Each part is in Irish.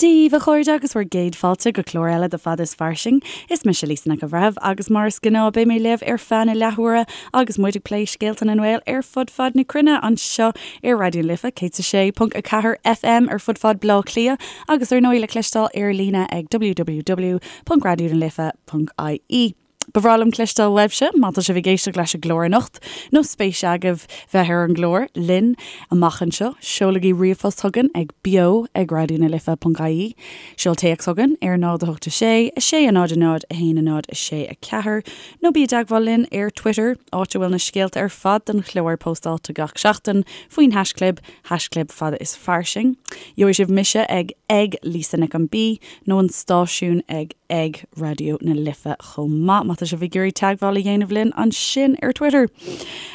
Dia daoibh, a chairde, agus bhur gcéad fáilte go clár eile de Fada is Fairsing. Is mise Lisa Nic an Bhreithimh agus mar is gnáth beidh mé libh ar feadh na leathuaire agus muid ag plé scéalta na nGael ar fud fad na cruinne anseo ar Raidió na Life 106.4 FM ar fud fad Bhaile Átha Cliath agus ar ndóigh le cloisteáil ar líne ag www.raidionalife.ie. Ba bhreá liom cloisteáil uaibhse má tá sibh ag éisteacht leis an gclár anocht nó spéis agaibh bheith ar an gclár linn amach anseo. Seolaigí ríomhphost chugainn ag beo ag raidionalife.ie, seol téacs chugainn ar 0 8 6 6 0 0 1 0 6 4 nó bí i dteagmháil linn ar Twitter, áit a bhfuil na scéalta ar fad don chlár póstáilte gach seachtain faoin haischlib, haischlib fada is fairsing. Gheobhaidh sibh mise ag ag Lisa Nic an B nó an stáisiún ag ag Raidió na Life chomh maith, má tá sibh ag iarraidh teagmháil a dhéanamh linn ansin ar Twitter.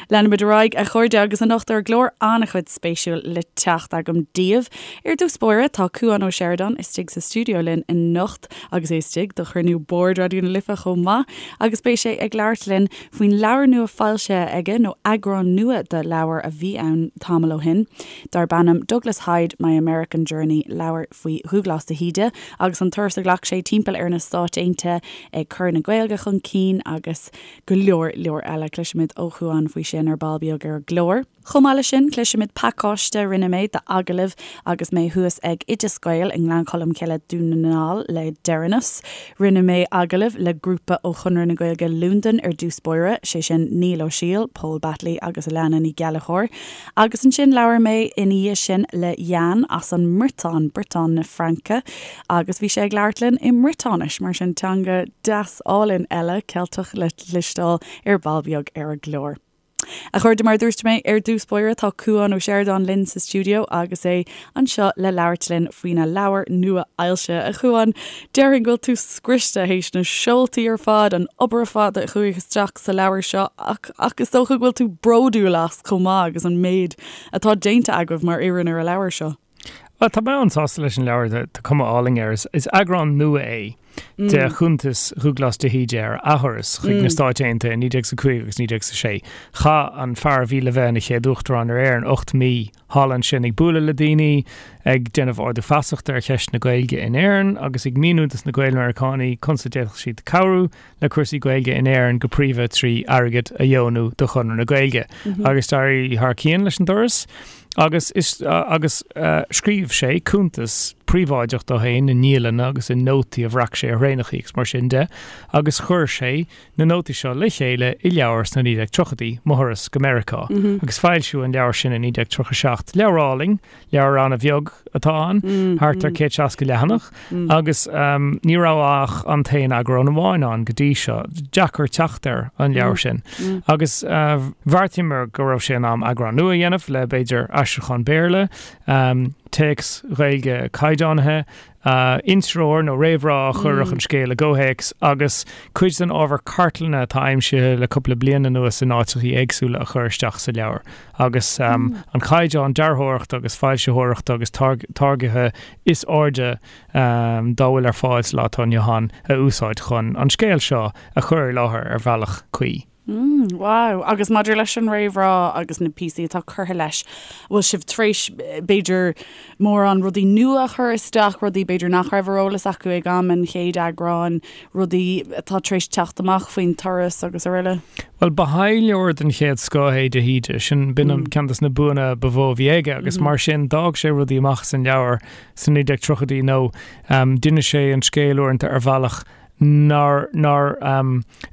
Leanfaimid ar aghaidh, a chairde, agus anocht ar an gclár an-chuid spéisiúil le teacht agam daoibh. Ar dtús báire, tá Cúán Ó Seireadáin istigh sa stiúideo linn anocht agus é istigh do chruinniú boird Raidió na Life chomh maith agus beidh sé ag labhairt linn faoin leabhar nua foilsithe aige, nó eagrán nua de leabhar a bhí ann tamall ó shin, darb ainm Douglas Hyde, My American Journey, leabhar faoi Dhúghlás de hÍde agus an turas a ghlac sé timpeall ar na Stáit Aontaithe ag cur na Gaeilge chun cinn agus go leor leor eile. Cloisfimid ó Chúán faoi sin ar ball beag ar an gclár. Chomh maith leis sin, cloisfimid pacáiste a rinne mé d'agallaimh agus mé thuas ag Oideas Gael i nGleann Cholm Cille, Dún na nGall le deireanas. Rinne mé agallamh le grúpa ó Chonradh na Gaeilge Londain ar dtús báire, sé sin Niall Ó Siail, Pól Batley agus Alana Ní Ghallchóir. Agus ansin labhair mé ina dhiaidh sin le Yann as an mBriotáin, Briotáin na Fraince, agus bhí sé ag labhairt linn i mBriotáinis, mar sin teanga deas álainn eile, Ceilteach le cloisteáil ar ball beag ar an gclár. A chairde, mar a dúirt mé ar dtús báire, tá Cúán Ó Seireadáin linn sa stiúideo agus é anseo le labhairt linn faoina leabhar nua-fhoilsithe. A Chúáin, déarfainn go bhfuil tú scriosta théis na seoltaí ar fad, an obair ar fad a chuaigh isteach sa leabhar seo ach ach is dócha go bhfuil tú bródúil as chomh maith agus an méid atá déanta agaibh mar fhoireann ar an leabhar seo. Bhuel, tá mé an-sásta leis an leabhar, tá cuma álainn air. Is eagrán nua é de chuntas Dhúghlás de hÍde ar a thuras chuig na Stáit Aontaithe i 1905 agus 1906. Chaith an fear a bhí le bheith ina chéad Uachtarán ar Éirinn 8 mí thall ansin ag bualadh le daoine, ag déanamh ardú feasachta ar cheist na Gaeilge in Éirinn agus ag míniú dos na Gael-Mheiriceánaigh conas a d'fhéadfadh siad cabhrú le cúrsaí Gaeilge in Éirinn go príomha trí airgead a dheonú do Chonradh na Gaeilge. Agus d'éirigh thar cionn leis an dturas agus is agus scríobh sé cuntas príobháideach dó féin i ndialanna agus i nótaí a bhreac sé ar thraenachaí agus mar sin de agus chuir sé na nótaí seo le chéile i leabhar sna 1930idí, Mo Thuras go Meiriceá. Agus foilsíodh an leabhar sin i 1937. Leabhar álainn. Leabhar an-bheag atá ann, thart ar 160 leathanach, agus ní raibh ach an t-aon eagrán amháin ann go dtí seo. Deacair teacht ar an leabhar sin. Agus bheartaíomar go raibh sé in am eagrán nua a dhéanamh le, b'fhéidir, aistriúchán Béarla, téacs Ghaeilge caighdeánaithe, Intreoir nó réamhrá a chuirfeadh an scéal i gcomhthéacs agus cuid den ábhar cartlainne atá aimsithe le cúpla bliain anuas in áiteachaí éagsúla a chur isteach sa leabhar agus an caighdeán dearthóireachta agus foilsitheoireachta agus táirgithe is airde dá bhfuil ar fáil sa lá atá inniu ann a úsáid chun an scéal seo a chur i láthair ar bhealach cuí. Mm, wow. Agus maidir leis an réamhrá agus na píosaí atá curtha leis, bhfuil sibh tar éis, b'fhéidir, mórán rudaí nua a chur isteach, rudaí b'fhéidir nach raibh ar eolas acu ag am an chéad eagráin, rudaí atá tar éis teacht amach faoin turas agus araile? Bhuel, ba thaidhleoir den chéad scoth é de hÍde, sin, b'in an ceann des na buanna ba mhó a bhí aige agus mar sin d'fhág sé rudaí amach as an leabhar sna 1930idí nó d'inis sé an scéal uaireanta ar bhealach nár nár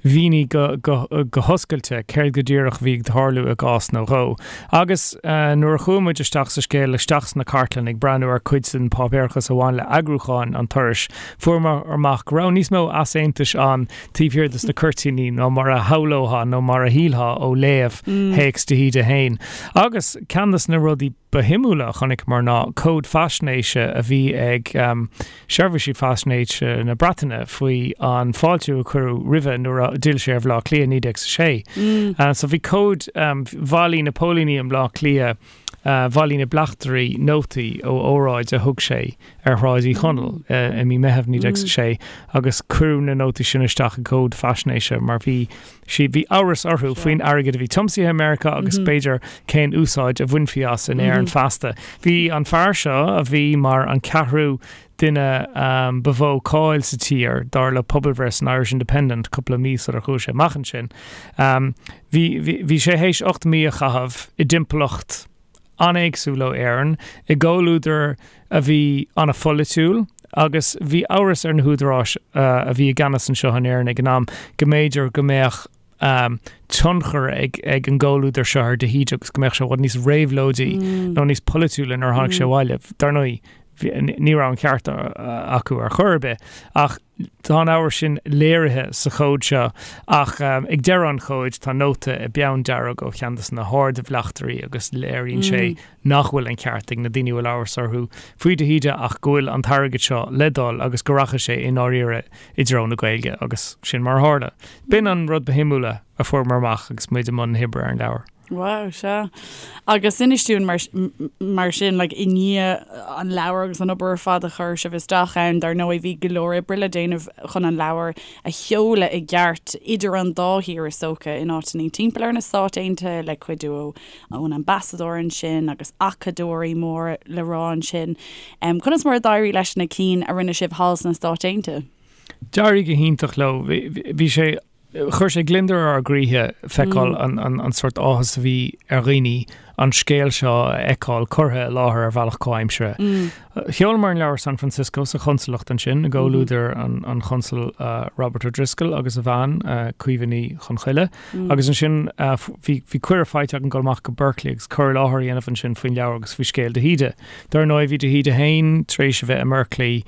mhínigh go go go hoscailte céard go díreach a bhí ag tarlú i gcás nó dhó. Agus nuair a chuaigh muid isteach sa scéal, isteach sna cartlanna ag breathnú ar cuid den pháipéarachas a bhain le eagrúchán an turais, fuaireamar amach go raibh níos mó easaontais ann taobh thiar de na cuirtíní ná mar a shamhlófá nó mar a shílfeá ó léamh théacs de hÍde féin. Agus ceann de na rudaí ba shuimiúla a chonaiceamar ná comhad faisnéise a bhí ag seirbhísí faisnéise na Breataine faoi an fáiltiú a cuireadh roimhe nuair a d'fhill sé ar Bhaile Átha Cliath i 1906. So bhí comhad, bhailigh na póilíní i mBleá Cliath. Bhailigh na bleachtairí nótaí ó óráid a thug sé ar Shráid Uí Chonaill i mí Meitheamh 1906 agus cuireadh na nótaí sin isteach i gcomhad faisnéise mar bhí sí, bhí amhras orthu faoin airgead a bhí tiomsaithe i Meiriceá agus b'fhéidir cén úsáid a bhainfí as in Éirinn feasta. Bhí an fear seo, a bhí mar an ceathrú duine ba mhó cáil sa tír, dar le pobalbhreith san Irish Independent cúpla mí sular chuaigh sé amach ansin. Bhí, bhí sé théis 8 mí a chaitheamh i dtimpeallacht an-éagsúil ó Éirinn, i gcomhluadar a bhí an-pholaitiúil agus bhí amhras ar na húdaráis a bhí i gceannas anseo in Éirinn ag an am go mb'fhéidir go mbeadh tionchar ag ag an gcomhluadar seo ar de hÍde agus go mbeadh sé i bhfad níos réabhlóidí nó níos polaitiúla nuair a tháinig sé abhaile. Dar ndóigh, ní raibh an ceart acu ar chor ar bith ach tá an amhras sin léirithe sa chomhad seo ach ag deireadh an chomhaid tá nóta i bpeann dearg ó cheann de na hard-bhleachtairí agus léiríonn sé nach bhfuil an ceart ag na daoine a bhfuil amhras orthu faoi de hÍde ach go bhfuil an t-airgead seo le dul agus go rachaidh sé i ndáiríre i dtreo na Gaeilge agus sin mar a tharla. B'in an rud ba shuimiúla a fuaireamar amach agus muid i mbun na hoibre ar an leabhar. Wow, sea. Agus inis dúinn mar, mar sin, like, i ndiaidh an leabhar agus an obair ar fad a chuir sibh isteach ann, dar ndóigh bhí go leor oibre le déanamh chun an leabhar a sheoladh i gceart idir an dá thír is dócha, in áiteanna timpeall ar na Stáit Aontaithe le cuidiú ó ón ambasadóir ansin agus acadóirí mór le rá ansin. Conas mar a d'éirigh leis na cinn a rinne sibh thall sna Stáit Aontaithe? D'éirigh go hiontach leo. Bhí sé, chuir sé gliondar ar ár gcroíthe feiceáil an sórt áthas a bhí ar dhaoine an scéal seo a fheiceáil curtha i láthair ar bhealach comhaimseartha. Sheolamar an leabhar San Francisco sa chonsalacht ansin i gcomhluadar an Chonsail Robert O'Driscoll agus a bhean, Caoimhe Ní Chonchoille. Agus ansin bhí cuireadh faighte againn dul amach go Berkeley agus cur i láthair a dhéanamh ansin faoin leabhar agus faoi scéal de hÍde. Dar ndóigh bhí de hÍde féin tar éis a bheith i mBerkeley,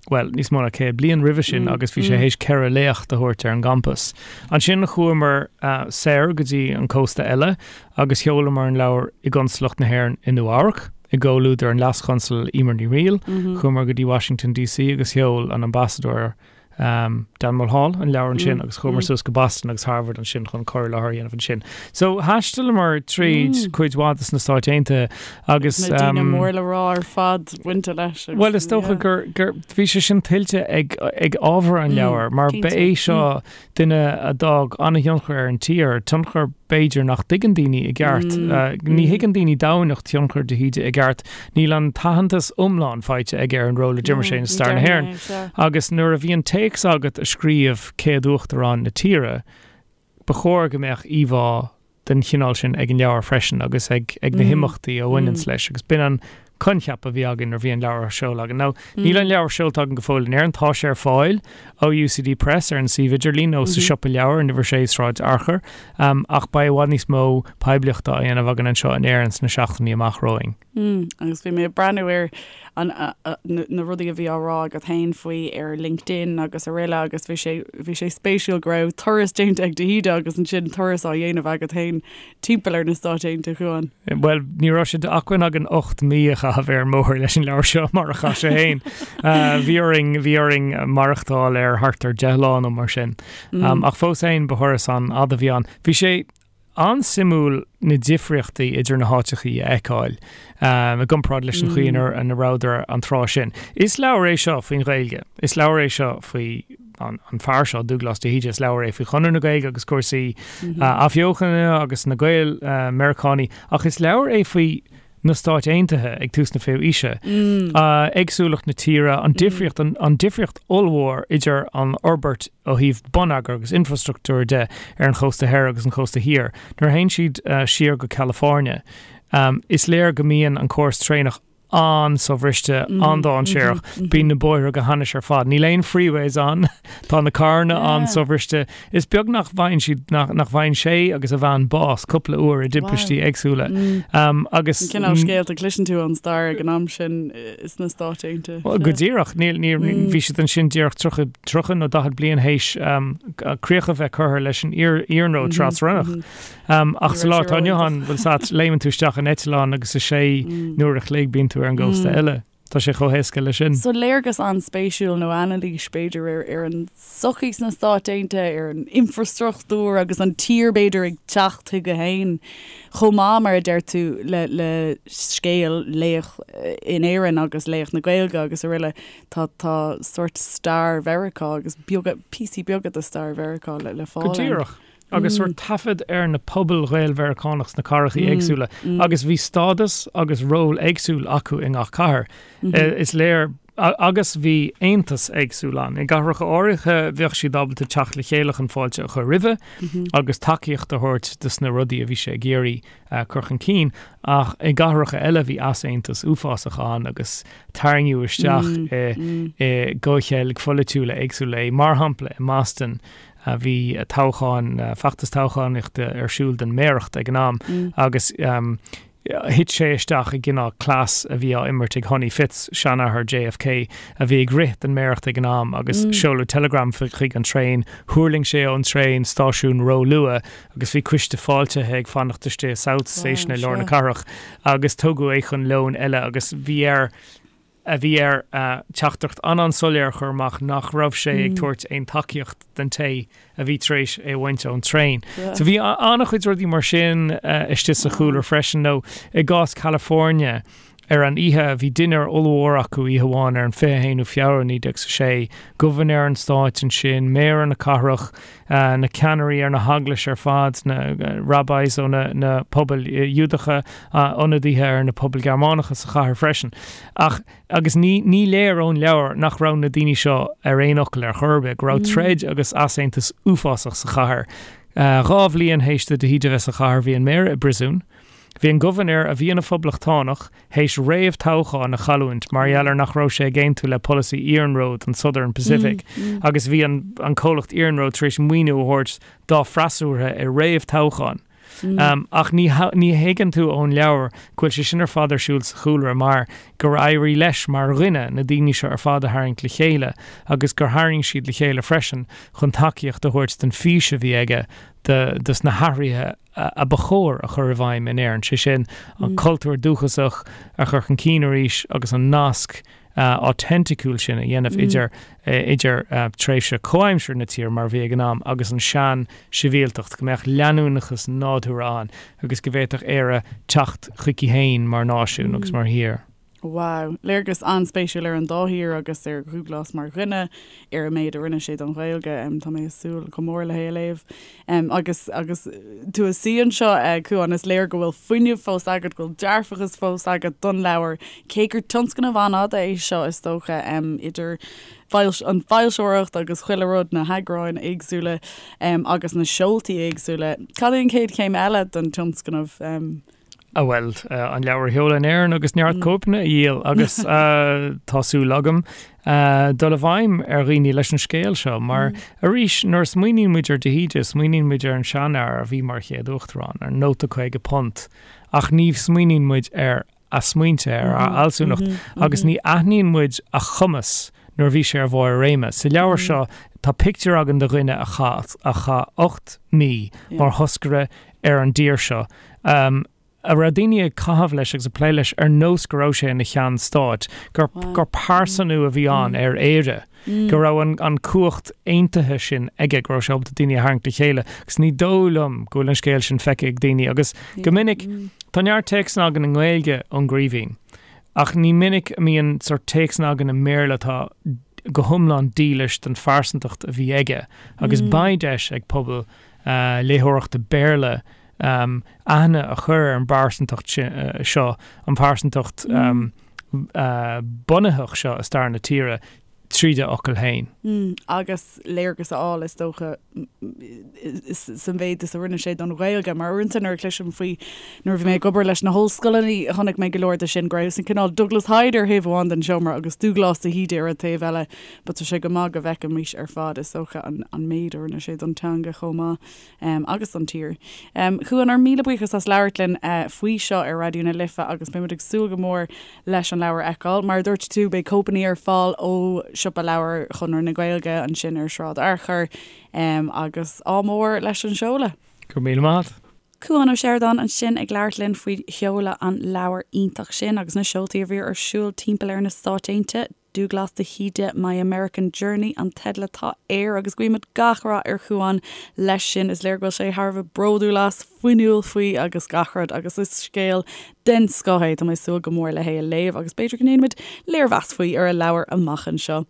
bhuel, níos mó ná 100 bliain roimhe sin agus bhí sé théis 4 léacht a thabhairt ar an gcampas. Ansin chuamar soir go dtí an cósta eile agus sheolamar an leabhar i gConsalacht na hÉireann i Nua Eabhrac, i gcomhluadar an Leas-Chonsail Emer Ní Fhrighil. Chuamar go dtí Washington DC agus sheol an Ambasadóir Dan Mulhall an leabhar ansin agus chuamar suas go Boston agus Harvard ansin chun cur i láthair a dhéanamh ansin. So thaistealamar tríd cuid mhaith de na Stáit Aontaithe agus. Na daoine mór le rá ar fad bainte leis. Bhuel is dócha gur gur bhí sé sin tuillte ag ag ábhar an leabhair mar ba é seo duine a d'fhág an-thionchar ar an tír, tionchar b'fhéidir nach dtuigeann daoine i gceart. Ní thuigeann daoine domhaindacht thionchar de hÍde i gceart. Níl an t-aitheantas iomlán faighte aige ar an ról a d'imir sé i stair na hÉireann. Agus nuair a bhíonn téacs agat a scríobh céad uachtarán na tíre, ba chóir go mbeadh íomhá den chineál sin ag an leabhar freisin agus ag ag na himeachtaí a bhaineanns leis agus b'in an coincheap a bhí againn nuair a bhí an leabhar á seoladh againn. Now, níl an leabhar seolta againn go fóill in Éirinn, tá sé ar fáil ó UCD Press ar an suíomh idirlín nó sa siopa leabhar in uimhir 6 Sráid Fhearchair, ach beidh i bhfad níos mó poiblíochta á dhéanamh againn anseo in Éirinn sna seachtainí amach romhainn. Agus bhí mé ag breathnú ar an, na rudaí a bhí á rá agat féin faoi ar LinkedIn agus araile agus bhí sé, bhí sé spéisiúil go raibh turas déanta ag de hÍde agus ansin turas á dhéanamh agat féin timpeall ar na Stáit Aontaithe, a Chuain. Bhuel, ní raibh sé d'acmhainn againn 8 mí a chaitheamh ar an mbóthar leis an leabhar seo mar a chaith sé féin. Bhí orainn, bhí orainn maireachtáil ar thart ar 10 lá nó mar sin. Ach fós féin ba thuras an-fhada a bhí ann. Bhí sé an-suimiúil na difríochtaí idir na háiteachaí a fheiceáil i gcomparáid leis an chaoi ina rabhadar an tráth sin. Is leabhar é seo faoin Ghaeilge. Is leabhar é seo faoi an fear seo, Dúglás de hÍde. Is leabhar é faoi Chonradh na Gaeilge agus cúrsaí athbheochana agus na Gaeil Meiriceánaí. Ach is leabhar é faoi na Stáit Aontaithe ag tús na fichiú aoise. Éagsúlacht na tíre, an difríocht, an difríocht ollmhór idir an fhorbairt ó thaobh bonneagair agus infrastruchtúir de ar an chósta thoir agus an chósta thiar. Nuair a théann siad siar go California, is léir go mbíonn an córas traenach an-sobhriste, an-dainséarach. Bíonn na bóithre go hainnis ar fad. Níl aon freeways ann. Tá na carranna an-sobhriste. Is beag nach bhfaigheann siad, nach bhfaigheann sé agus a bhean bás cúpla uair i dtimpistí éagsúla. Agus. An cineál scéalta a chloiseann tú ón stair ag an am sin sna Stáit Aontaithe. Go díreach. Níl, ní, bhí siad ansin díreach 30, 30 nó 40 bliain théis críoch a bheith curtha leis an iarnród trasrannach. Ach sa lá atá inniu ann, bhfuil a fhios agat, léimeann tú isteach in eitleán agus i sé n-uair a chloig bíonn tú ar an gcósta eile. Tá sé chomh héasca leis sin. So léargas an-spéisiúil nó anailís, b'fhéidir, ar ar an tsochaí sna Stáit Aontaithe, ar an infreastruchtúr agus an tír, b'fhéidir, ag teacht chuige féin chomh maith, mar a deir tú, le le scéal laoch in Éirinn agus laoch na Gaeilge agus araile. Tá tá sórt stair Mheiriceá agus beaga, píosaí beaga de stair Mheiriceá le le fáil ann. Go díreach. agus sórt taifead ar na pobail Ghael-Mheiriceánach sna cathracha éagsúla agus bhí stádas agus ról éagsúil acu i ngach cathair. Is léir agus bhí aontas éagsúil ann. I gcathracha áirithe bheadh siad ábalta teacht le chéile chun fáilte a chur roimhe agus tacaíocht a thabhairt dos na rudaí a bhí sé ag iarraidh cur chun cinn ach i gcathracha eile bhí easaontas uafásach ann agus tarraingíodh isteach i gcomhcheilg pholaitiúla éagsúla é. Mar shampla i mBoston Bhí toghchán, feachtas toghchánaíochta ar siúl don méaracht ag an am agus thit sé isteach i gcineál cleas a bhí á imirt ag Honey Fitz, seanathair JFK, a bhí ag rith don méaracht ag an am agus seoladh teileagram chuig an traein, thuirling sé ón traein stáisiún ró-luath agus bhí coiste fáiltithe ag fanacht istigh i South Station i lár na cathrach agus tugadh é chun lóin eile agus bhí air a bhí air teachtaireacht an-an-soiléir a chur amach nach raibh sé ag tabhairt aon tacaíocht don té a bhí tar éis é a bhaint ón traein. So bhí an-chuid rudaí mar sin istigh sa chúlra freisin nó i gcás California ar an oíche bhí dinnéar ollmhór acu oíche amháin ar an 21ú Feabhra 1906, gobharnóir an stáit ansin, méara na cathrach, na ceannairí ar na heaglais ar fad, na rabbis ó na pobail Ghiúdacha, ionadaithe ar na pobail Ghearmánacha sa chathair freisin. Ach, agus ní, ní léir ón leabhar nach raibh na daoine seo ar aon fhocal ar chor ar bith, go raibh troid agus easaontas uafásach sa chathair. 2 bhliain théis do de hÍde bheith sa chathair, bhí an méara i bpríosún. Bhí an gobharnóir, a bhí ina phoblachtánach, théis réamh-toghchán a chailliúint mar gheall ar nach raibh sé ag aontú le polasaí iarnróid an Southern Pacific agus bhí an an comhlacht iarnróid tar éis maoiniú a thabhairt dá freasúra i réamh-toghchán. Ach ní ní thuigeann tú ón leabhar go bhfuil sé sin ar fad ar siúl sa chúlra mar gur éirigh leis mar dhuine na daoine seo ar fad a tharraingt le chéile agus gur tharraing siad le chéile freisin chun tacaíocht a thabhairt don fhís a bhí aige do dos na hathruithe a ba chóir a chur i bhfeidhm in Éirinn, sé sin, an cultúr dúchasach a chur chun cinn arís agus an nasc autenticúil sin a dhéanamh idir idir tréimhse comhaimseartha na tíre mar a bhí ag an am agus an sean-sibhialtacht, go mbeadh leanúnachas nádúrtha ann agus go bhféadfadh Éire teacht chuici féin mar náisiún agus mar thír. Wow. Léargas an-spéisiúil ar an dá thír agus ar Dhúglás mar dhuine, ar an méid a rinne sé don Ghaeilge. Tá mé ag súil go mór le hé a léamh. Agus agus tú ag suí anseo, a Chuáin, is léir go bhfuil fuinneamh fós agat, go bhfuil dearfachas fós agat don leabhar, cé gur tionscnamh an-fhada é seo, is dócha, idir an foilsitheoireacht agus chuile rud, na heagráin éagsúla agus na seoltaí éagsúla. Cad é an chéad chéim eile don tionscnamh? A bhuel, an leabhar a sheoladh in Éirinn agus neart cóipeanna a dhíol agus tá súil agam dul i bhfeidhm ar dhaoine leis an scéal seo mar arís nuair a smaoiníonn muid ar de hÍde smaoiníonn muid ar an seanfhear a bhí mar chéad uachtarán, ar an nóta £50 ach ní smaoiníonn muid ar a smaointe, ar a fhealsúnacht agus ní aithníonn muid a chumas nuair a bhí sé ar bharr a réime. Sa leabhar seo tá pictiúr againn de dhuine a chaith a chaith 8 mí mar thoscaire ar an dtír seo, a raibh daoine ag caitheamh leis agus ag plé leis ar nós go raibh sé ina cheann stáit, gur gur pearsanú a bhí ann ar Éire, go raibh an an cumhacht aontaithe sin aige, go raibh sé ábalta daoine a tharraingt le chéile. Agus ní dóigh liom go bhfuil an scéal sin feicthe ag daoine agus go minic tá neart téacsanna againn i nGaeilge ón gCraoibhín ach ní minic a mbíonn sórt téacsanna againn i mBéarla atá go hiomlán dílis don phearsantacht a bhí aige agus beidh deis ag pobal léitheoireachta Béarla aithne a chur ar an bpearsantacht seo, an phearsantacht bunaitheach seo i stair na tíre tríd a fhocail féin. Agus léargas a fháil, is dócha, sa mhéid is a rinne sé don Ghaeilge. Mar uaireanta nuair a chloisim faoi, nuair a bhí mé ag obair leis na hollscoileanna, chonaic mé go leor de sin, go raibh an cineál Douglas Hyde ar thaobh amháin den seomra agus Dúglás de hÍde ar an taobh eile. But tá sé go maith go bhfeicfimis ar fad, is dócha, an méid a rinne sé don teanga chomh maith agus don tír. Chuáin, ár míle buíochas as labhairt linn faoi seo ar Raidió na Life agus beimid ag súil go mór leis an leabhar a fheiceáil. Mar a dúirt tú, beidh cóipeanna ar fáil ó Siopa Leabhar Chonradh na Gaeilge ansin ar Shráid Fhearchair agus ádh mór leis an seoladh. Go raibh míle maith agat. Cúán Ó Seireadáin ansin ag labhairt linn faoi sheoladh an leabhair iontach sin agus na seoltaí a bhí ar siúl timpeall ar na Stáit Aontaithe, Dúghlas de hÍde, My American Journey an teideal atá air agus guímid gach rath ar Chúán leis sin. Is léir go bhfuil sé thar a bheith bródúil as, fuinniúil faoi agus gach rud agus is scéal den scoth é. Tá mé ag súil go mór le hé a léamh agus b'fhéidir go ndéanfaimid léirmheas faoi ar an leabhar amach anseo.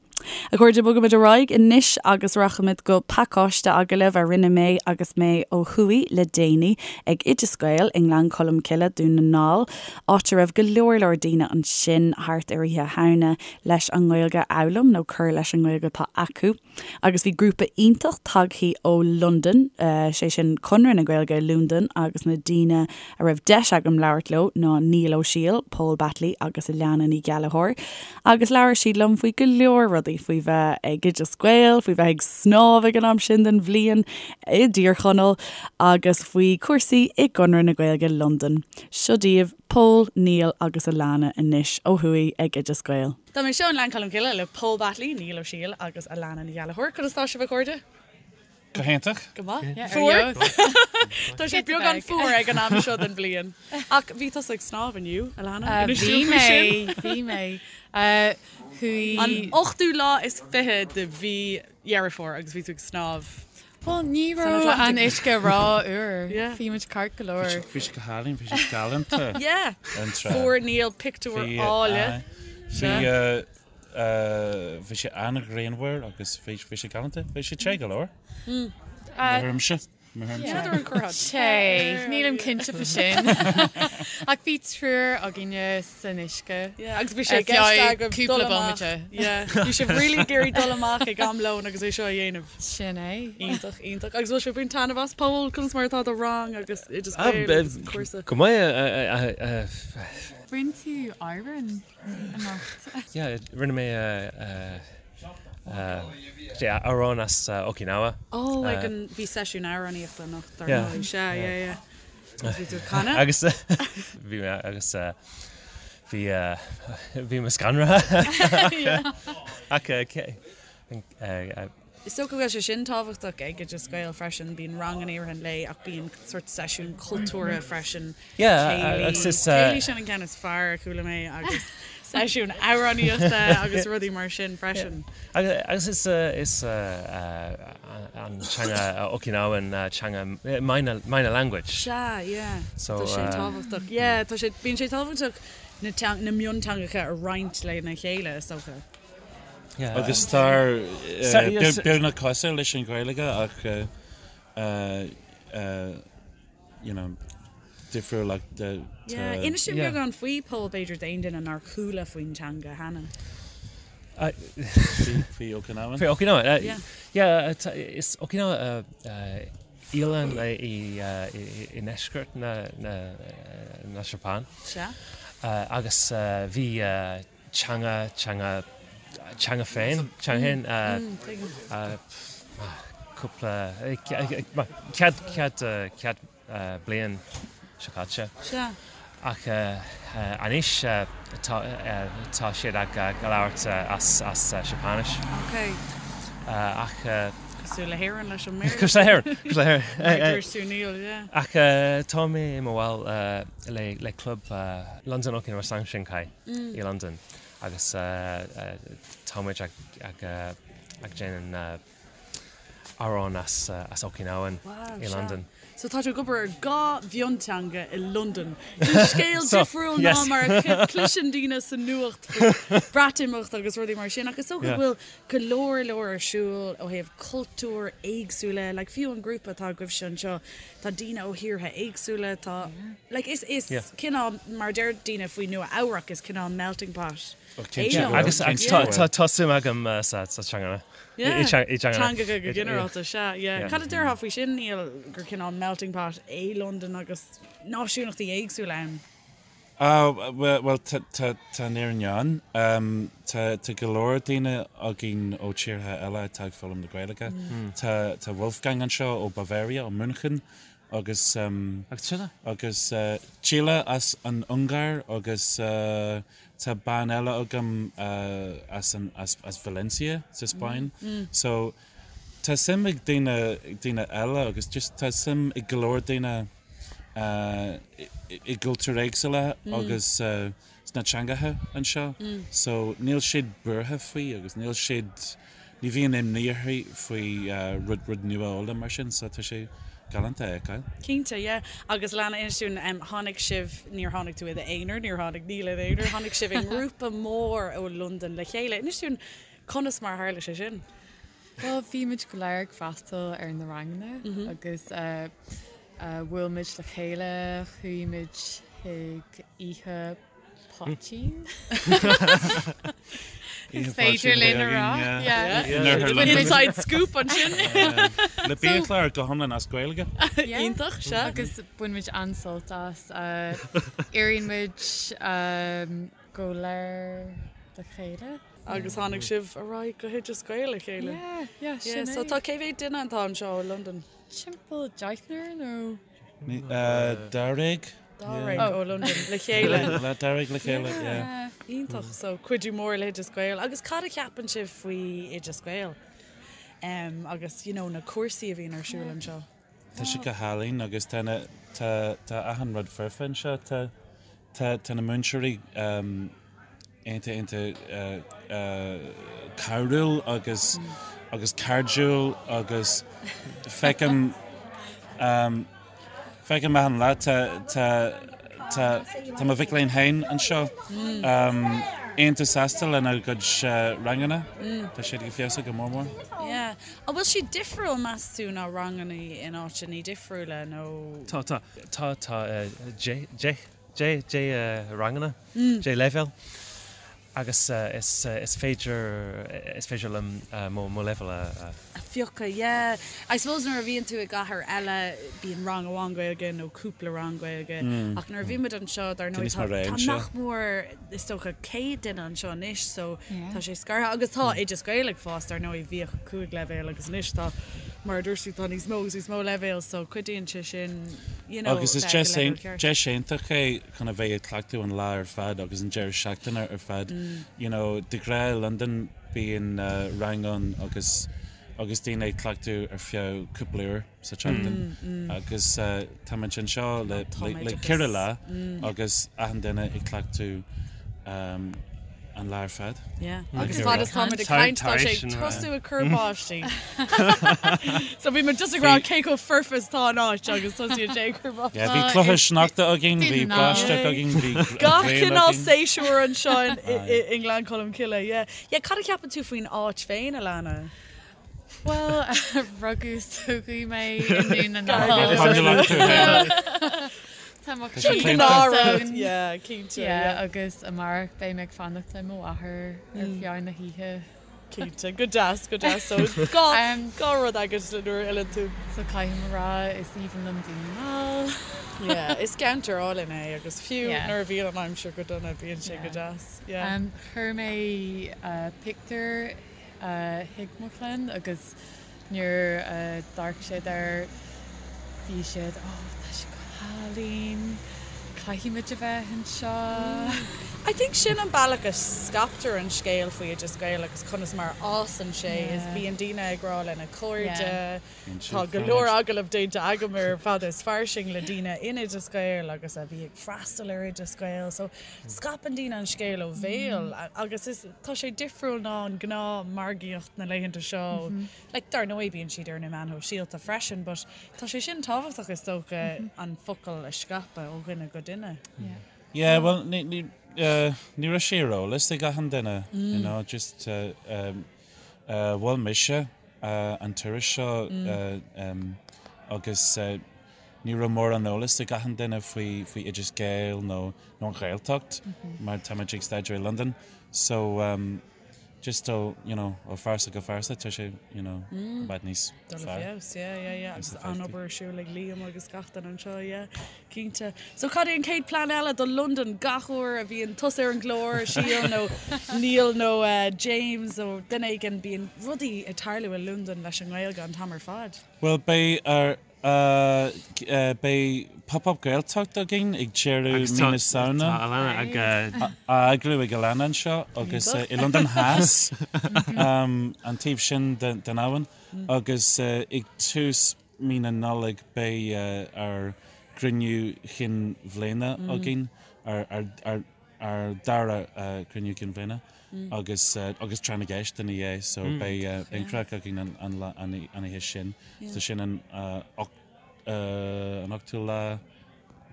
A chairde, bogaimid ar aghaidh anois agus rachaimid go pacáiste agallaimh a rinne mé agus mé ó thuaidh le déanaí ag Oideas Gael i nGleann Cholm Cille, Dún na nGall, áit a raibh go leor leor daoine ansin thart ar Oíche Shamhna leis an nGaeilge a fhoghlaim nó cur leis an nGaeilge atá acu. Agus bhí grúpa iontach tagthaí ó Londain, sé sin Conradh na Gaeilge i Londain agus na daoine a raibh deis agam labhairt leo ná Niall Ó Siail, Pól Batley agus Alana Ní Ghallchóir. Agus labhair siad liom faoi go leor rudaí, faoi bheith ag Oideas Gael, faoi bheith ag snámh ag an am sin den bhliain i dTír Chonaill agus faoi chúrsaí i gConradh na Gaeilge Londain. Seo daoibh Pól, Niall agus Alana anois ó thuaidh ag Oideas Gael. Tá mé anseo i nGleann Cholm Cille le Pól Batley, Niall Ó Siail agus Alana Ní Ghallchóir. Conas tá sibh a chairde? Go hiontach. Go maith. Fuar? Tá sé beagán fuar ag an am seo den bhliain. Ach bhí tusa ag snámh inniu, Alana. Inis Bhí dúinn faoi mé, sin. bhí mé. Chuaigh. An ochtú lá is 20 de mhí Dheireadh Fómhair agus bhí tú ag snámh. Bhuel, ní San raibh an Atlantic. uisce ró-fhuar. Yeah. Bhí muid ceart go leor. Bhí sé go hálainn, bhí sé galánta. Yeah. An trá. Fuair Niall pictiúr Bhí, áille. aye. Bhí, Bhí sé an-ghrianmhar agus bhí sé galánta. Bhí sé te go leor. Mo thuairimse. Mo thuairimse. N'fheadar an gcuirfeá Te. Nílim cinnte faoi sin. Ach bhí triúr againne san uisce. Yeah, agus bhí sé i gceist agaibh dul Cúpla amach. bomaite. Yeah, bhí sibh really ag iarraidh dul amach ag am lóin agus é seo a dhéanamh. Sin é. Iontach, iontach. Agus bhfuil sibh ag baint taitneamh as, Pól? Conas mar atá do rang agus Oideas Gael agus an cúrsa? Go maith. Rinne tú amhrán? anocht. Yeah, rinne mé amhrán as Okinawa. Oh, ag an, bhí seisiún amhránaíochta anocht, dar ndóigh. Sea, yeah, yeah. Agus bhí tú ag canadh? Agus bhí mé, agus bhí, bhí mé scanraithe. Ach Is dócha go bhfuil sé sin tábhachtach ag Oideas Gael freisin, bíonn ranganna i rith an lae ach bíonn sórt seisiún cultúrtha freisin, céilí, céilí sin an ceann is fearr a chuala mé agus seisiún amhránaíochta agus rudaí mar sin freisin. Agus is is an teanga Okinawan teanga minor minor language. Sea, yeah. So tá sé tábhachtach. Yeah, tá sé bíonn sé tábhachtach na na mionteangacha a roinnt lena chéile is dócha. Agus tá beagnach cosúil leis an Ghaeilge ach you know difriúil ach tá. Yeah, inis dúinn beagán faoi Pól b'fhéidir d'aon duine nár chuala faoin teanga cheana. Faoi Okinawan? Faoi Okinawan, yeah, is Okinawa oileán i ndeisceart na Seapáin. Sea. Agus bhí teanga, teanga, teanga féin, teanga féin, cúpla, cead, cead, cead bliain seo caite. Sea. Ach anois tá, tá siad ag labhairt as, as Seapáinis. Ok. Ach. Cosúil le hÉirinn leis an mBéarla. Cosúil le hÉirinn, cosúil le hÉirinn. Mar a dúirt tú Niall, yeah. Ach tá mé i mo bhall le, le club Londain Okinawa Sanshinkai. i Londain agus tá muid ag déanamh amhrán as Okinawan i Londain. So tá tú ag obair ar dhá mhionteanga i Londain. Sin scéal difriúil ná mar a chloiseann daoine sa nuacht faoi Bhreatimeacht agus rudaí mar sin ach is dócha go bhfuil go leor leor ar siúl ó thaobh cultúir éagsúla, like fiú an grúpa atá agaibhse anseo, Tá daoine ó thíortha éagsúla, tá, like, is, is cineál, mar a deir daoine faoi Nua Eabhrac, is cineál melting pot é Londain. Agus, agus tá, tá, tá suim agam sa, sa teanga. Yeah. I, i teanga. Teangacha go ginearálta, sea, yeah. Cad a déarfá faoi sin, Niall, gur cineál melting pot é Londain agus náisiúnachtaí éagsúla ann? Ah, bhuel, tá an fhírinne ann. Tá go leor daoine againn ó tíortha eile atá ag foghlaim na Gaeilge. Tá Wolfgang anseo ó Bavaria, ó München, agus agus Csilla as an Ungáir agus tá bean eile agam as as Valencia sa Spáinn. So tá suim ag daoine daoine eile agus just tá suim ag go leor daoine. i gcultúir éagsúla agus sna teangacha anseo so níl siad buartha faoi agus níl siad, ní bhíonn imní orthu faoi rud, rud nua a fhoghlaim mar sin so tá sé galánta a fheiceáil. Cinnte, yeah. Agus Alana, inis dúinn, tháinig sibh, níor tháinig tú i d'aonar, níor tháinig Niall ina aonar, tháinig sibh i ngrúpa mór ó Londain le chéile. Inis dúinn conas mar a tharla sé sin? Bhuel, bhí muid go léir ag freastal ar na ranganna agus bhuail muid le chéile, chuaigh muid chuig oíche poitín. Is féidir linn a rá. Inside scoop ansin. Le biachlár go hiomlán as Gaeilge. Iontach, sea. Agus bhain muid an-sult as. Éiríonn muid go léir le chéile. Agus tháinig sibh ar aghaidh go hOideas Gael le chéile. Yeah, yeah, sin é. So tá cé mhéad duine atá anseo i Londain? Timpeall deichniúr nó? Dáréag. Dáréag ó Londain le chéile. Le dáréag le chéile, yeah. Iontach. So cuidiú mór le hOideas Gael. Agus cad a cheapann sibh faoi Oideas Gael? Agus you know na cúrsaí a bhíonn ar siúl anseo? Tá sé go hálainn agus tá na, tá, tá achan rud foirfe anseo. Tá, tá, tá na múinteoirí iontach, iontach cabhrúil agus, agus cairdiúil agus feicim, feicim achan lá tá, tá, tá, tá mo mhic léinn féin anseo iontach sásta lena gcuid ranganna. Tá siad ag feabhsú go mór mór. Yeah. An bhfuil siad difriúil, meas tú, ná ranganna in áiteanna difriúla nó? Tá, tá. Tá, tá deich, deich, deich, deich ranganna, deich leibhéal agus is, is féidir, is féidir liom mo, mo leibhéal a. A phiocadh, yeah. I suppose nuair a bhíonn tú i gcathair eile bíonn rang amháin Gaeilge nó cúpla rang Gaeilge ach nuair a bhíonn muid anseo dar ndóigh tá, tá nach mór, is dócha 100 duine anseo anois so tá sé scartha agus tá Oideas Gael ag fás dar ndóigh bhíodh 5 leibhéal agus anois tá mar a dúirt tú tá níos mó agus níos mó leibhéal so cuidíonn sé sin you know Agus is deis deis iontach é chun a bheith ag cleachtadh an lá ar fad agus an deireadh seachtaine ar fad you know de ghnáth i Londain bíonn rang ann agus agus daoine ag cleachtadh ar feadh cúpla uair. sa tseachtain agus táimid anseo le ceithre lá agus achan duine ag cleachtadh an lá ar fad. Yeah. Agus fad is táimid ag caint tá sé ag tosú ag cur báistí. So bhí muid just ag rá cé chomh foirfe is atá an áit agus tosaíonn sé ag cur báistí. Yeah, bhí cluiche sneachta againn, bhí báisteach againn, bhí Gach cineál séasúr anseo i nGleann Cholm Cille. Yeah. Yeah, cad a cheapann tú faoin áit féin, Alana? Bhuel, rugadh is tógadh mé i nDún na nGall. Tá mo chroí ann. Yeah, cinnte. Yeah, agus amárach beidh mé ag fanacht le mo mháthair ar feadh na hoíche. Cinnte, go deas, go deas. So, dhá dhá rud agat nuair a fhilleann tú. So caithfidh mé a rá, is aoibhinn liom Dún na nGall. Yeah, is ceantar álainn é agus fiú nuair a bhíonn an aimsir go dona bíonn sé go deas. Yeah. Chuir mé pictiúr chuig mo chlann agus nuair a d'amharc siad air bhí siad oh tá sé go hálainn, caithfidh muid a bheith anseo. I think sin an bealach a scaiptear an scéal faoi Oideas Gael agus conas mar a fhásann sé is bíonn daoine ag rá lena cairde, tá go leor agallamh déanta agam ar Fada is Fairsing le daoine in Oideas Gael agus a bhí ag freastal ar Oideas Gael so scaipeann daoine an scéal ó bhéal agus is Tá sé difriúil ná an gnáth margaíocht na laethanta seo. Like, dar ndóigh bíonn siad ar na meáin shóisialta freisin, but tá sé sin tábhachtach is dócha an focal a scaipeadh ó dhuine go duine. Yeah, well, ní, ní, uh, ní raibh sé ar eolas ag achan duine, you know, just, uh, um, uh, mhol mise, uh, an turas seo, uh, um, agus, uh, Ní raibh mórán eolas ag achan duine faoi faoi Oideas Gael nó nó an Ghaeltacht mar táimid ag staidéar i Londain so um, just ó you know ó phearsa go phearsa tá sé you know i bhfad níos Dul i fearr. feabhas, yeah, yeah, yeah. Níos Agus éifeachtaí. an-obair ar siúl ag Liam agus gach duine anseo, yeah, cinnte. So cad é an chéad plean eile do Londain gach uair a bhíonn tusa ar an gclár, Síle nó Niall nó eh, James nó duine éigin, bíonn rudaí ag tarlú i Londain leis an nGaeilge an t-am ar fad. Bhuel beidh ar Beidh Pop Up Gaeltacht againn ag deireadh mí na Samhna. Tá Alana ag. Á eagrú ag Alana anseo agus i Londain Theas, an taobh sin den abhainn, agus ag tús mí na Nollag beidh ár gcruinniú chinn bhliana againn, ár dara cruinniú cinn bhliana agus agus tráth na gceist ina dhiaidh so beidh an craic againn an lá an oíche sin. So sin an an ochtú lá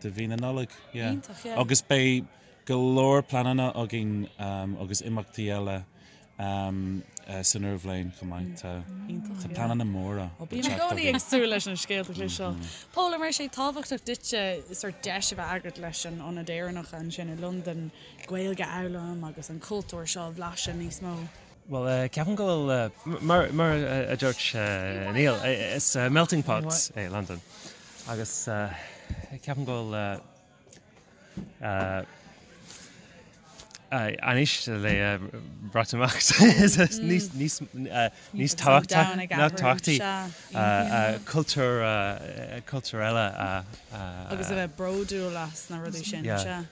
de mhí na Nollag. Yeah. Iontach, yeah. Agus beidh go leor pleananna againn agus imeachtaí eile san úr bhliain chomh maith. Tá Iontach, yeah. pleananna móra Ó, bím i gcónaí ag súil leis na scéalta a chloisteáil. Pól, an raibh sé tábhachtach duitse sort deis a bheith agat leis an Ionad Éireannach ansin i Londain Gaeilge a fhoghlaim agus an cultúr seo a bhlaiseadh níos mó? Bhuel, ceapaim go bhfuil, mar mar a dúirt Niall, is melting pot é Londain agus ceapaim go bhfuil anois le Breatimeacht níos níos níos tábhachtaí cultúr cultúr eile a Agus a bheith bródúil as na rudaí sin, sea.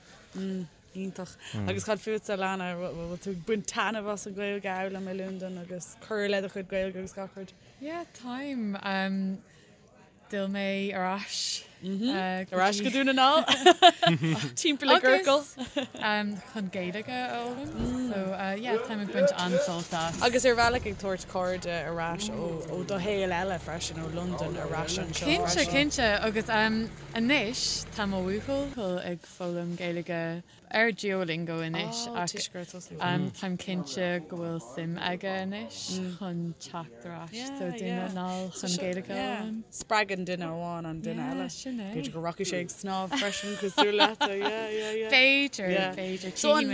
Iontach. Agus cad fútsa, Alana, bhfuil tú ag baint taitneamh as an Ghaeilge a fhoghlaim i Londain agus cur le do chuid Gaeilge agus gach rud? Yeah, táim. D'fhill mé ar ais. Ar ais go Dún na nGall. Timpeall i gciorcal. Chun Gaeilge a fhoghlaim. So yeah, táim ag baint an-sult as. Agus ar bhealach ag tabhairt cairde ar ais ó do shaol eile freisin, ó Londain ar ais anseo freisin. Cinnte, cinnte. Agus anois tá mo bhuachaill ag foghlaim Gaeilge ar Duolingo anois ach táim cinnte go bhfuil suim aige anois chun teacht ar ais do Dún na nGall chun Gaeilge a fhoghlaim. Spreagann duine amháin an duine eile. Sin é. B'fhéidir go rachaidh sé ag snámh freisin cosúil leat. Yeah, yeah, yeah. B'fhéidir, b'fhéidir. So an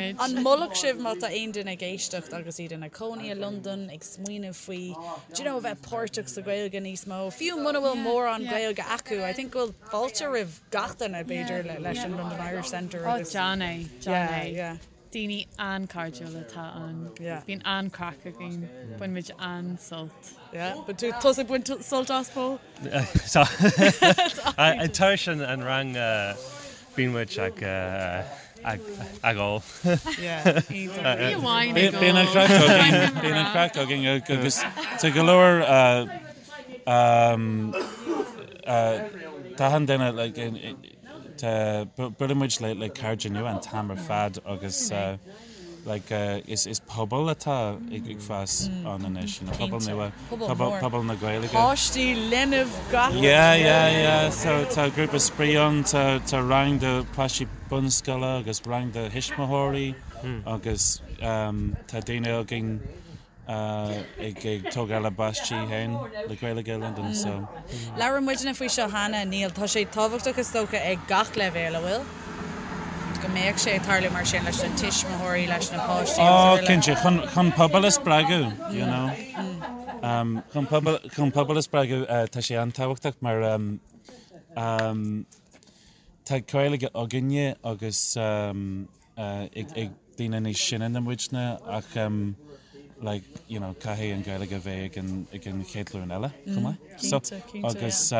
molfadh sibh má tá aon duine ag éisteacht agus iad ina cónaí i Londain ag smaoineamh faoi do you know, a bheith páirteach sa Ghaeilge níos mó, fiú muna bhfuil mórán Gaeilge acu, I think go bhfuil fáilte roimh gach duine, b'fhéidir, leis an London Irish Centre agus. Ó, déan é, déan é. Yeah. Daoine an-chairdiúil atá ann. Yeah. Bíonn an-craic againn. Bainimid an-sult. Yeah. Bíonn tú tusa ag baint sult as, Pól? Tá. Tar éis an rang bíonn muid ag ag ól. Yeah. Iontach. Ní amháin ag ól. Bíonn an craic againn, bíonn an craic againn agus tá go leor Tá achan duine like tá buaileann muid le le cairde nua an t-am ar fad agus like is is pobal atá ag ag fás ann anois, you know, pobal nua, pobal pobal na Gaeilge. Páistí, linbh, gach rud. Yeah, yeah, yeah. So tá grúpa spraoi ann, tá tá rang do páistí bunscoile agus rang do thuismitheoirí agus tá daoine againn ag tógáil a bpáistí féin le Gaeilge i Londain so. Labhair muidne faoi seo cheana, Niall. Tá sé tábhachtach is dócha ag gach leibhéal, an bhfuil? Go mbeadh sé ag tarlú mar sin leis na tuismitheoirí, leis na páistí agus Ó, araile. cinnte, chun, chun pobal a spreagadh, you know. Chun pobal, chun pobal a spreagadh, tá sé an-tábhachtach mar tá Gaeilge againne agus ag daoine níos sine ná muidne ach like you know caithfidh an Ghaeilge a bheith ag an ag an chéad ghlúin eile chomh maith. So agus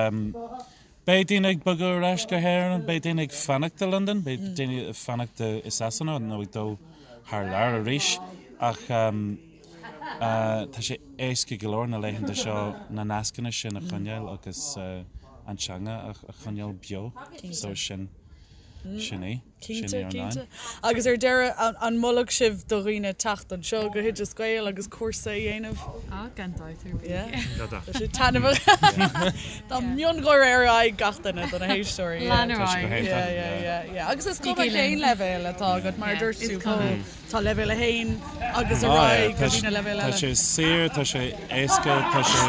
beidh daoine ag bogadh ar ais go hÉirinn, beidh daoine ag fanacht i Londain, beidh daoine ag fanacht i Sasana nó ag dul thar lear arís ach tá sé éasca go leor na laethanta seo na nascanna sin a choinneáil agus an teanga a choinneáil beo. So sin sin í. Cinnte, cinnte. Agus ar deireadh, an molfadh sibh do dhaoine teacht anseo go hOideas Gael agus cúrsa a dhéanamh? Á, gan dabht ar bith. Yeah. Tá sé taitneamhach. Tá miongháire ar aghaidh gach duine do na héisteoirí. Lean ar aghaidh. Yeah, yeah, yeah, yeah. Agus is cuma cén leibhéal atá agat, mar a dúirt tú, Pól. Tá leibhéal 1 agus ar aghaidh go dtí na leibhéil eile. Tá sé saor, tá sé éasca, tá sé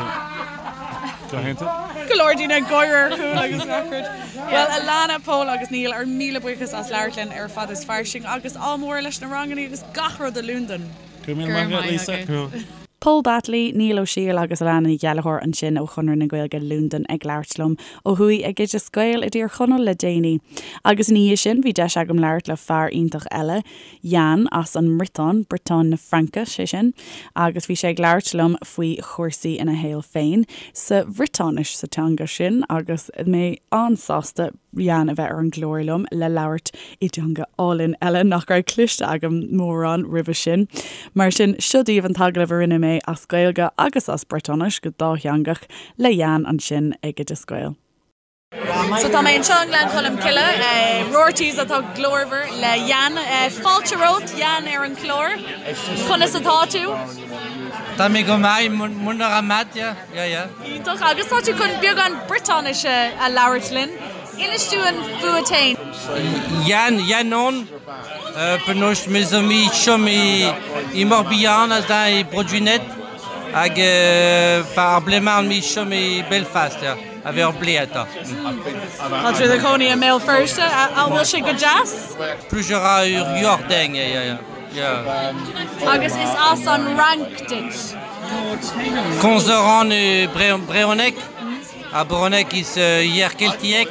go hiontach. Go leor daoine ag gáire ar chúl agus gach rud. Bhuel, Alana, Pól agus Niall, ár míle buíochas as labhairt linn ar Fad is Fairsing agus ádh mór leis na ranganna agus gach rud i Londain. Go raibh míle maith agat, Lisa. Pól Batley, Niall Ó Siail agus Alana Ní Ghallchóir ansin ó Chonradh na Gaeilge Londain ag labhairt liom ó thuaidh ag Oideas Gael i dTír Chonaill le déanaí. Agus ina dhiaidh sin bhí deis agam labhairt le fear iontach eile, Yann as an mBriotáin, Briotáin na Fraince, sé sin, agus bhí sé ag labhairt liom faoi chúrsaí ina shaol féin sa Bhriotáinis, sa teanga sin, agus mé an-sásta Yann a bheith ar an gclár liom le labhairt i dteanga álainn eile nach raibh cloiste agam mórán roimhe sin. Mar sin, seo daoibh an t-agallamh a rinne mé as Gaeilge agus as Briotáinis, go dátheangach, le Yann ansin ag Oideas Gael. So tá mé anseo i nGleann Cholm Cille, Roarty's atá glórmhar le Yann. Fáilte romhat, Yann, ar an chlár. Conas atá tú? Tá mé go maith, mont a ra mat, yeah, yeah, yeah. Iontach. Agus tá tú chun beagán Briotáinise a labhairt linn. Inis dúinn fút fhéin. Yann, Yann on, penaos me zo me chom e, e Morbihan aze e Bro-Gwened hag ar blez-mañ on me chom e Belfast, yeah. A bheith ur blé atá. Tá tú i do chónaí i mBéal Feirste, an bhfuil sé go deas? Plij a ra ur yoc'h din, yeah, yeah. Agus is as an Fhrainc duit? Komz a ran brezhoneg, ha brezhoneg is yer keltiek.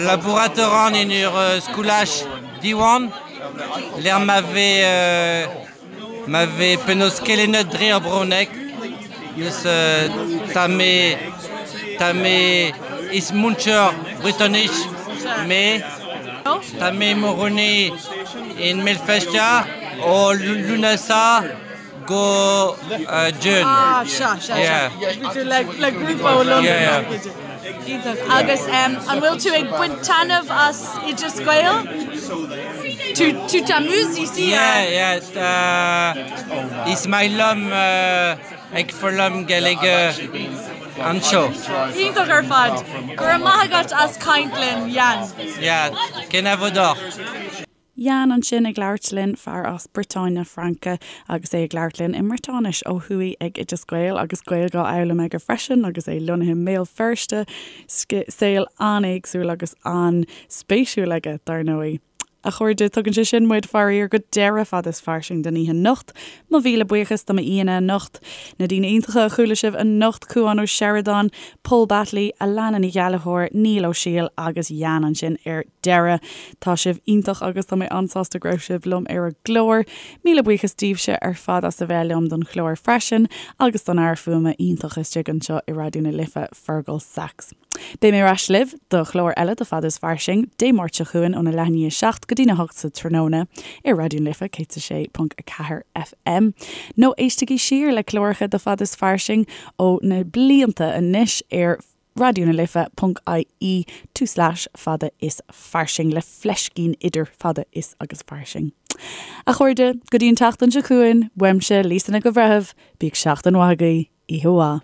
Labourat a ran en ur skolaj Diwan, lec'h ma vez Ma vez penaos kelennet dre ar bronneg, neus ta me ta me is muncher bretonich me ta me morone in Melfestia o Lunasa go June. Ah, sea, sea, sea. Bhí tú le le grúpa ó Londain. Yeah, yeah. Iontach. Agus an bhfuil tú ag baint taitneamh as Oideas Gael? Tu tu t'amuses ici? Yeah, yeah. Is maith liom ag foghlaim Gaeilge anseo. Iontach ar fad. Go raibh maith agat as caint linn, Yann. Yeah, kenavo deoc'h. Yann ansin ag labhairt linn, fear as Briotáin na Fraince agus é ag labhairt linn i mBriotáinis ó thuaidh ag Oideas Gael agus Gaeilge á fhoghlaim aige freisin agus é lonnaithe i mBéal Feirste. Saol an-éagsúil agus an-spéisiúil aige, dar ndóigh. A chairde, tugann sé sin muid, faraor, go deireadh Fada is Fairsing don oíche anocht. Mo mhíle buíochas do m'aíonna anocht, na daoine iontacha a chuala sibh anocht, Cúán Ó Seireadáin, Pól Batley, Alana Ní Ghallchóir, Niall Ó Siail agus Yann ansin ar deireadh. Tá sibh iontach agus tá mé an-sásta go raibh sibh liom ar an gclár. Míle buíochas daoibhse ar fad as a bheith liom don chlár freisin agus don fhear fuaime iontach istigh anseo i Raidió na Life, Fergal Sachs. Beidh mé ar ais libh do chlár eile de Fada is Fairsing Dé Máirt seo chugainn óna leath i ndiaidh a 7 go dtína 8 sa tráthnóna ar Raidió na Life 106.4 FM. Nó éistigí siar le cláracha de Fada is Fairsing ó na blianta anois ar Raidió na Life ponc ie tulslais fada is fairsing le fleiscín idir fada is agus fairsing. A chairde, go dtí an tseachtain seo chugainn, uaimse, Lisa Nic an Bhreithimh, bíodh seachtain mhaith agaibh, oíche mhaith.